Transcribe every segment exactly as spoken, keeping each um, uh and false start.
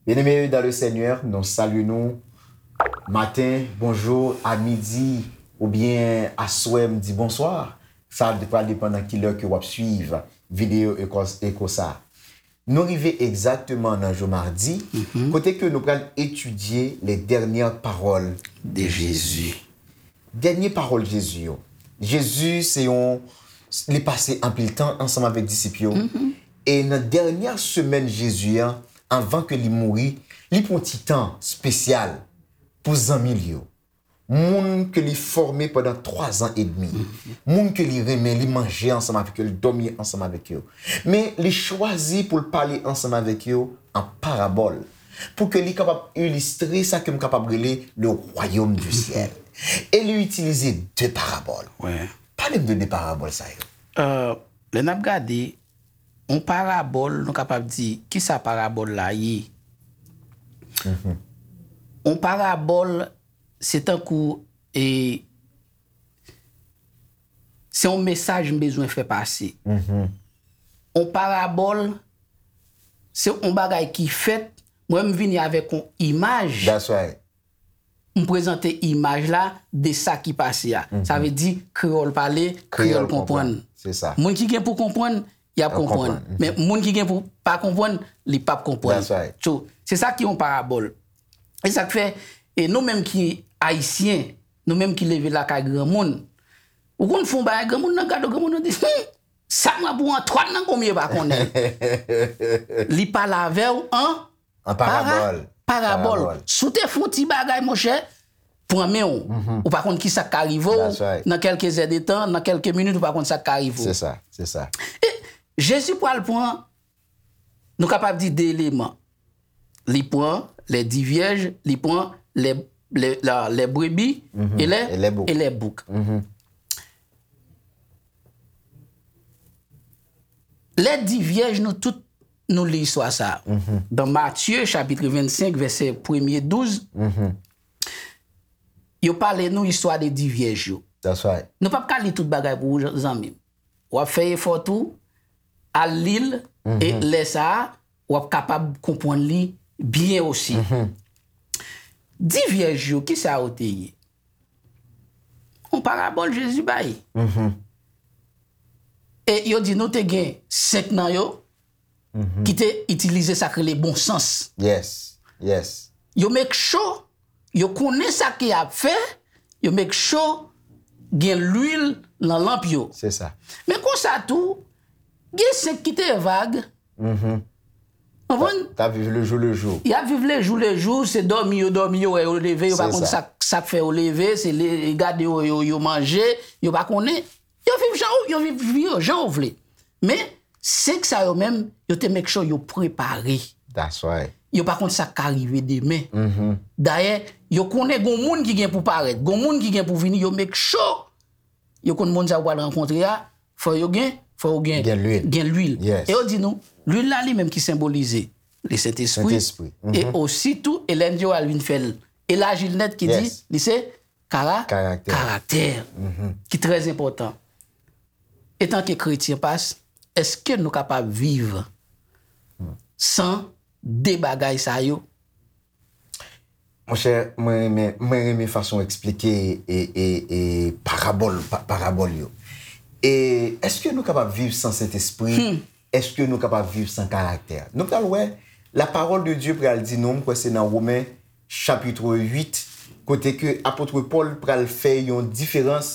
Bien-aimés dans le Seigneur, nou salye nou maten, bonjou, a midi, oubyen aswè, m di bonswa. Sa pral depann nan ki lè ke w ap swiv videyo eko, eko sa. Nou rive egzakteman nan jou madi, kote ke nou pral etidye les dernières paroles de Jésus. Dènye pawòl Jezi yo. Jezi se yon, li pase anpil tan ansanm avèk disip yo. E nan dènyè semèn Jezi an, anvan ke li mouri, li pran ti tan espesyal pou zanmi l yo. Moun ke li fòme pandan twa zan edmi. Moun ke li renmen, li manje ansanm avèk yo, li dòmi ansanm avèk yo. Men li chwazi pou l pale ansanm avèk yo an parabòl. Pou ke li kapab ilistre sa ke m kapab rele le royaume du ciel. E li itilize de parabòl. Pale m de de parabòl sa yo. Euh, lè n ap gade, yon parabòl, nou kapab di, kisa parabòl la ye? Yon parabòl, se tankou, e, se yon mesaj m bezwen fè pase. Yon parabòl, se yon bagay ki fèt, mwen m vini avèk yon imaj. That's right. M prezante imaj la de sa ki pase a. Sa vle di, kreyòl pale, kreyòl konprann. Se sa. Moun ki gen pou konprann, y ap konprann. Men moun ki gen pou pa konprann, li p ap konprann. That's right. So, se sa ki yon parabòl. E sa k fè, e nou menm ki ayisyen, nou menm ki leve lakay granmoun, ou konn fè yon bagay, granmoun nan gade w, granmoun nan di, "Hmm, sa m ap ou Antwàn nan konbyen pa konnen." Li pale avè w an An parabòl. Parabòl. Si w te fè yon ti bagay, monchè, pran men w. Ou pa konn ki sa k ka rive w. That's right. Nan kèlke zè de tan, nan kèlke minit, ou pa konn sa k ka rive w. Se sa, se sa. E Jezi pral pran, nou kapab di de eleman. Li pran les dix vierges, li pran les, les, la, les brebis e les, e les boucs. E les boucs. Les dix vierges, nou tout, nou li istwa sa a. Dan Matye, chapit vennsenk, vèsè premye, douz, yo pale nou istwa de dix vierges yo. That's right. Nou p ap ka li tout bagay pou ou, zanmi m. W ap fè efò tou, al li l, e lè sa a, w ap kapab konprann li byen osi. Dix vierges yo, kisa yo te ye? Yon parabòl Jezi bay. E yo di nou te gen senk nan yo ki te itilize sa k rele bon sans. Yes, yes. Yo make sure, yo konnen sa ke y ap fè, yo make sure gen lwil nan lanp yo. Se sa. Men konsa tou, gen senk ki te vag. Konprann? K ap viv le jou le jou. Y ap viv le jou le jou, se dòmi yo dòmi, yo wè yo leve, yo pa konn sa, sa k fè yo leve, se le, gade yo, yo, yo manje, yo pa konnen. Yo viv jan ou, yo viv vi yo jan ou vle. Men, senk sa yo menm, yo te make sure yo prepare. That's right. Yo pa konn sa k ka rive demen. Dayè, yo konnen gon moun ki gen pou parèt, gon moun ki gen pou vini, yo make sure yo konn moun sa yo pral rankontre a, fò yo gen, fò yo gen, gen lwil. Gen lwil. Yes. E yo di nou, lwil la li menm ki senbolize Lesentespri. Sentespri. E osi tou, Ellen G. White vin fè l elaji l nèt ki di, yes, li se kara-, karaktè. Karaktè, ki trè enpòtan. Etanke kretyen, pas, èske nou kapab viv san de bagay sa yo? Monchè, mwen renmen, mwen renmen fason w eksplike e, e, e parabòl, pa, parabòl yo. E èske nou kapab viv san Sentespri? Èske nou kapab viv san karaktè? Nou pral wè, la parole de Dieu pral di nou, m kwè se nan Women chapit uit, kote ke apot Pòl pral fè yon diferans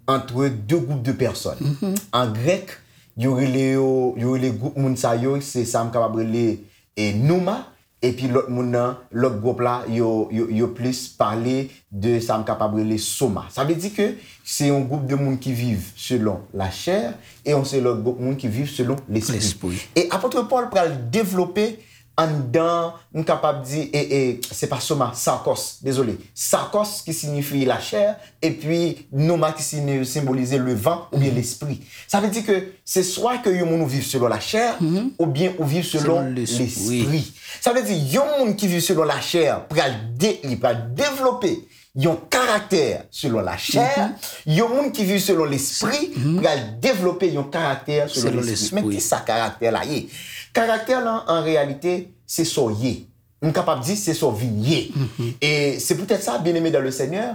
ant de gwoup de pèsòn. An grèk, yo rele yo, yo rele gwoup moun sa yo, se sa m kapab rele, e, nouma, epi lòt moun nan, lòt gwoup la, yo, yo, yo plis pale de sa m kapab rele soma. Sa vle di ke se yon gwoup de moun ki viv selon lachè e yon se lòt gwoup moun ki viv selon lespri. Lespri. E apot Pòl pral devlope anndan, m kapab di, e, e, se pa soma, sarkos, dezole. Sarkos ki siyifi lachè, epi nouma ki siyifi, senbolize le van oubyen lespri. Sa vle di ke se swa ke yon moun ou viv selon lachè, oubyen ou viv selon lespri. Sa vle di, yon moun ki viv selon lachè pral de-, li pral devlope yon karaktè selon lachè, yon moun ki viv selon lespri pral devlope yon karaktè selon lespri. Men kisa karaktè la ye? Karaktè lan, an reyalite, se sa w ye. M kapab di se sa w vin ye. E se poutèt sa, byeneme dan le Senyè,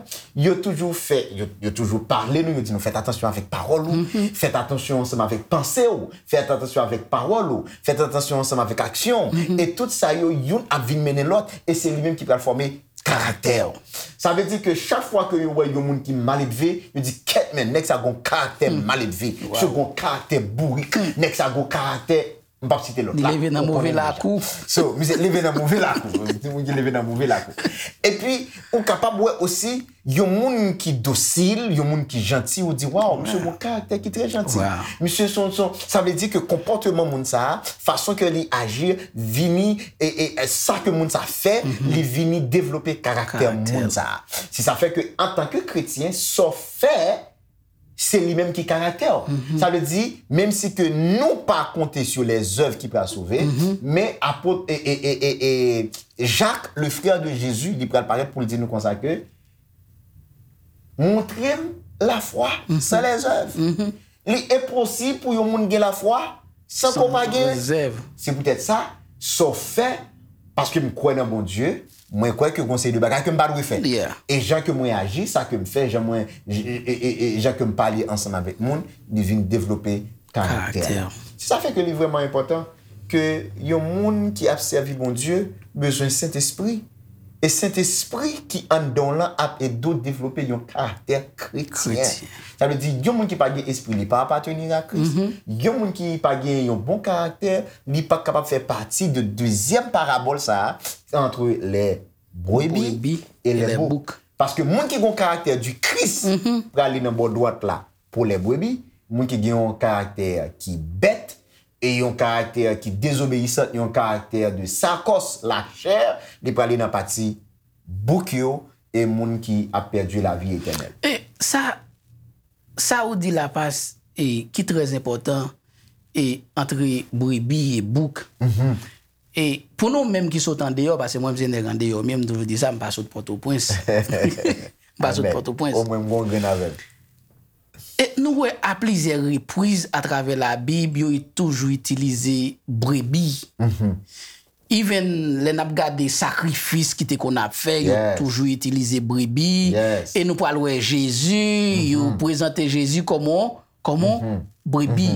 yo toujou fè, yo, yo toujou pale nou, yo di nou, fèt atansyon avèk pawòl ou, fèt atansyon ansanm avèk panse w, fèt atansyon avèk pawòl ou, fèt atansyon ansanm avèk aksyon w. E tout sa yo, youn ap vin mennen lòt, e se li menm ki pral fòme karaktè w. Sa vle di ke chak fwa ke yo wè yon moun ki maledve, yo di, kèt men, nèg sa gon karaktè maledve, misye gon karaktè bourik, nèg sa gon karaktè, m p ap site lòt la. Li leve nan move lakou. So, misye leve nan move lakou. Yon moun ki leve nan move lakou. Epi, ou kapab wè osi, yon moun ki dosil, yon moun ki janti, ou di, waw, misye gon karaktè ki trè janti. Misye son, son, sa vle di ke konpòteman moun sa a, fason ke li aji, vini, e, e, e sa ke moun sa fè, li vini devlope karaktè moun sa a. Se sa fè ke, antanke kretyen, sa w fè, se li menm ki karaktè w. Sa vle di, menm si ke nou pa konte sou lèzèv ki pral sove, men apot, e, e, e, e, e, Jak, le frè de Jezi, li pral parèt pou l di nou konsa ke, montre m lafwa san lèzèv. Li enposib pou yon moun gen lafwa san ke w pa gen. Se poutèt sa, sa w fè, paske m kwè nan Bondye, mwen kwè ke gon seri de bagay ke m pa dwe fè. E jan ke mwen aji, sa ke m fè, jan mwen, e, e, e, e, jan ke m pale ansanm avèk moun, li vin devlope karaktè. Se sa fè ke li vrèman enpòtan ke yon moun ki ap sèvi Bondye bezwen Sentespri. E Sentespri ki anndan w lan ap ede w devlope yon karaktè kretyen. Sa vle di, yon moun ki pa gen espri, li pa apateni a Kris. Yon moun ki pa gen yon bon karaktè, li pa kapab fè pati de dezyèm parabòl sa a, entre les brebis et les boucs. Paske moun ki gen yon karaktè di Kris prale nan bò dwat la pou les brebis, moun ki gen yon karaktè ki bèt, e yon karaktè ki dezobeyisan, yon karaktè de sakòs, lachè, li prale nan pati bouk yo, e moun ki ap pèdi lavi etènèl. E sa, sa ou di la, pas, e ki trè enpòtan, e antre brebi e bouk. E pou nou menm ki sot andeyò, paske mwen, m se nèg andeyò, men m toujou di sa, m pa sot Pòtoprens. M pa sot Pòtoprens. Omwen m gon grenn avè l. E nou wè a plizyè repriz atravè Labib, yo toujou itilize brebi. Even lè n ap gade sakrifis ki te konn ap fè, yo toujou itilize brebi. E nou pral wè Jezi, yo prezante Jezi kòman, kòman brebi.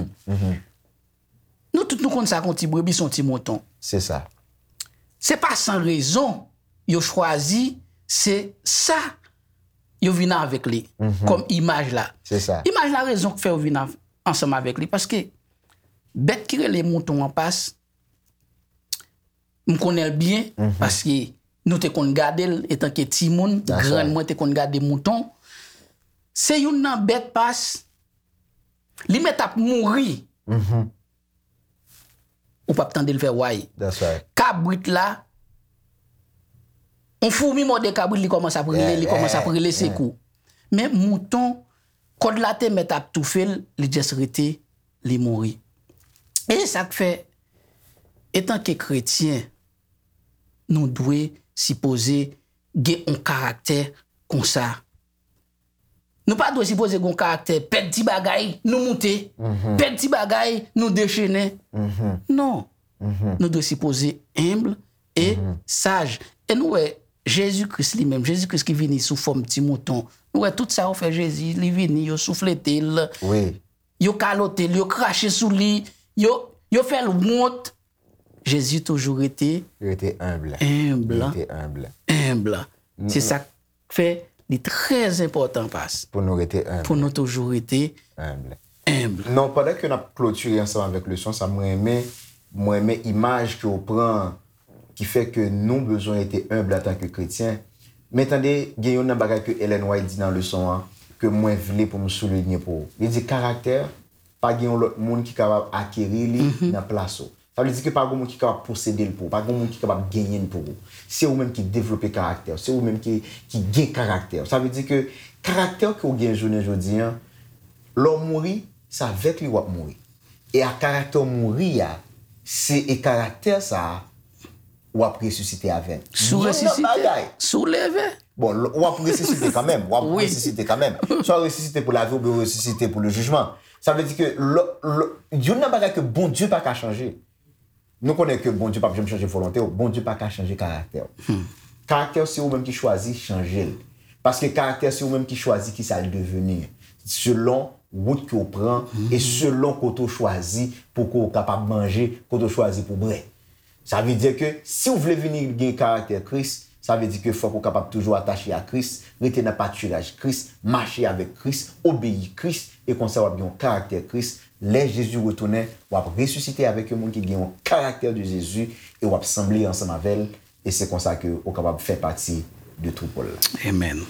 Nou tout nou konn sa ke yon ti brebi se yon ti mouton. Se sa. Se pa san rezon yo chwazi se sa yo vin avèk li kòm imaj la. Se sa. Imaj la, rezon k fè yo vin av- ansanm avèk li, paske bèt ki rele mouton an, pas, m konnen l byen, paske nou te konn gade l etanke timoun, grann mwen te konn gade mouton. Se youn nan bèt, pas, li mèt ap mouri. Ou p ap tande l fè way. Kabrit la, yon foumi mòde kabrit, li kòmanse ap rele, li kòmanse ap rele sekou. Men mouton, kòd la te mèt ap toufe l, li just rete, li mouri. E se sa k fè, etanke kretyen, nou dwe sipoze gen yon karaktè konsa. Nou pa dwe sipoze gen yon karaktè, pèdi bagay, nou moute. Pèdi bagay, nou dechennen. Non. Nou dwe sipoze enb e saj. E nou wè, Jezi Kris li menm, Jezi Kris ki vini sou fòm ti mouton. Nou wè tout sa yo fè Jezi, li vini, yo souflete l, yo kalote l, yo krache sou li, yo, yo fè l wont. Jezi toujou rete enb. Rete enb. Enb. Se sa k fè li trè enpòtan, pas. Pou nou rete enb. Pou nou toujou rete enb. Enb. Non, pandan ke n ap klotire ansanm avèk leson sa, mwen renmen, mwen renmen imaj ke w pran, ki fè ke nou bezwen rete enb antanke kretyen. Men tande, gen youn nan bagay ke Ellen White di nan leson an, ke mwen vle pou m soulinye pou ou. Li di, karaktè, pa gen yon lòt moun ki kapab akeri li nan plas ou. Sa vle di ke pa gen moun ki kapab posede l pou ou, pa gen moun ki kapab genyen l pou ou. Se ou menm ki devlope karaktè w, se ou menm ki, ki gen karaktè w. Sa vle di ke karaktè w ke w gen jounen jodi an, lè w mouri, se avèk li w ap mouri. E a karaktè w mouri a, se e karaktè sa a w ap resisite avè l. Si w resisite, si w leve. Bon, w ap resisite kanmenm, w ap resisite kanmenm. Swa w resisite pou lavi oubyen w resisite pou le jijman. Sa vle di ke youn nan bagay ke Bondye pa ka chanje. Nou konnen ke Bondye p ap janm chanje volonte w. Bondye pa ka chanje karaktè w. Karaktè w se ou menm ki chwazi chanje l. Paske karaktè se ou menm ki chwazi kisa l deveni. Selon wout ke w pran e selon kote w chwazi pou ke w kapab manje, kote w chwazi pou bwè. Sa vle di ke si w vle vini gen karaktè Kris, sa vle di ke fòk ou kapab toujou atache a Kris, rete nan patiraj Kris, mache avèk Kris, obeyi Kris, e konsa w ap gen yon karaktè Kris. Lè Jezi retounen, w ap resisite avèk yon moun ki gen yon karaktè de Jezi e w ap sanble ansanm avè l, e se konsa ke ou kapab fè pati de twoupo l la. Amen.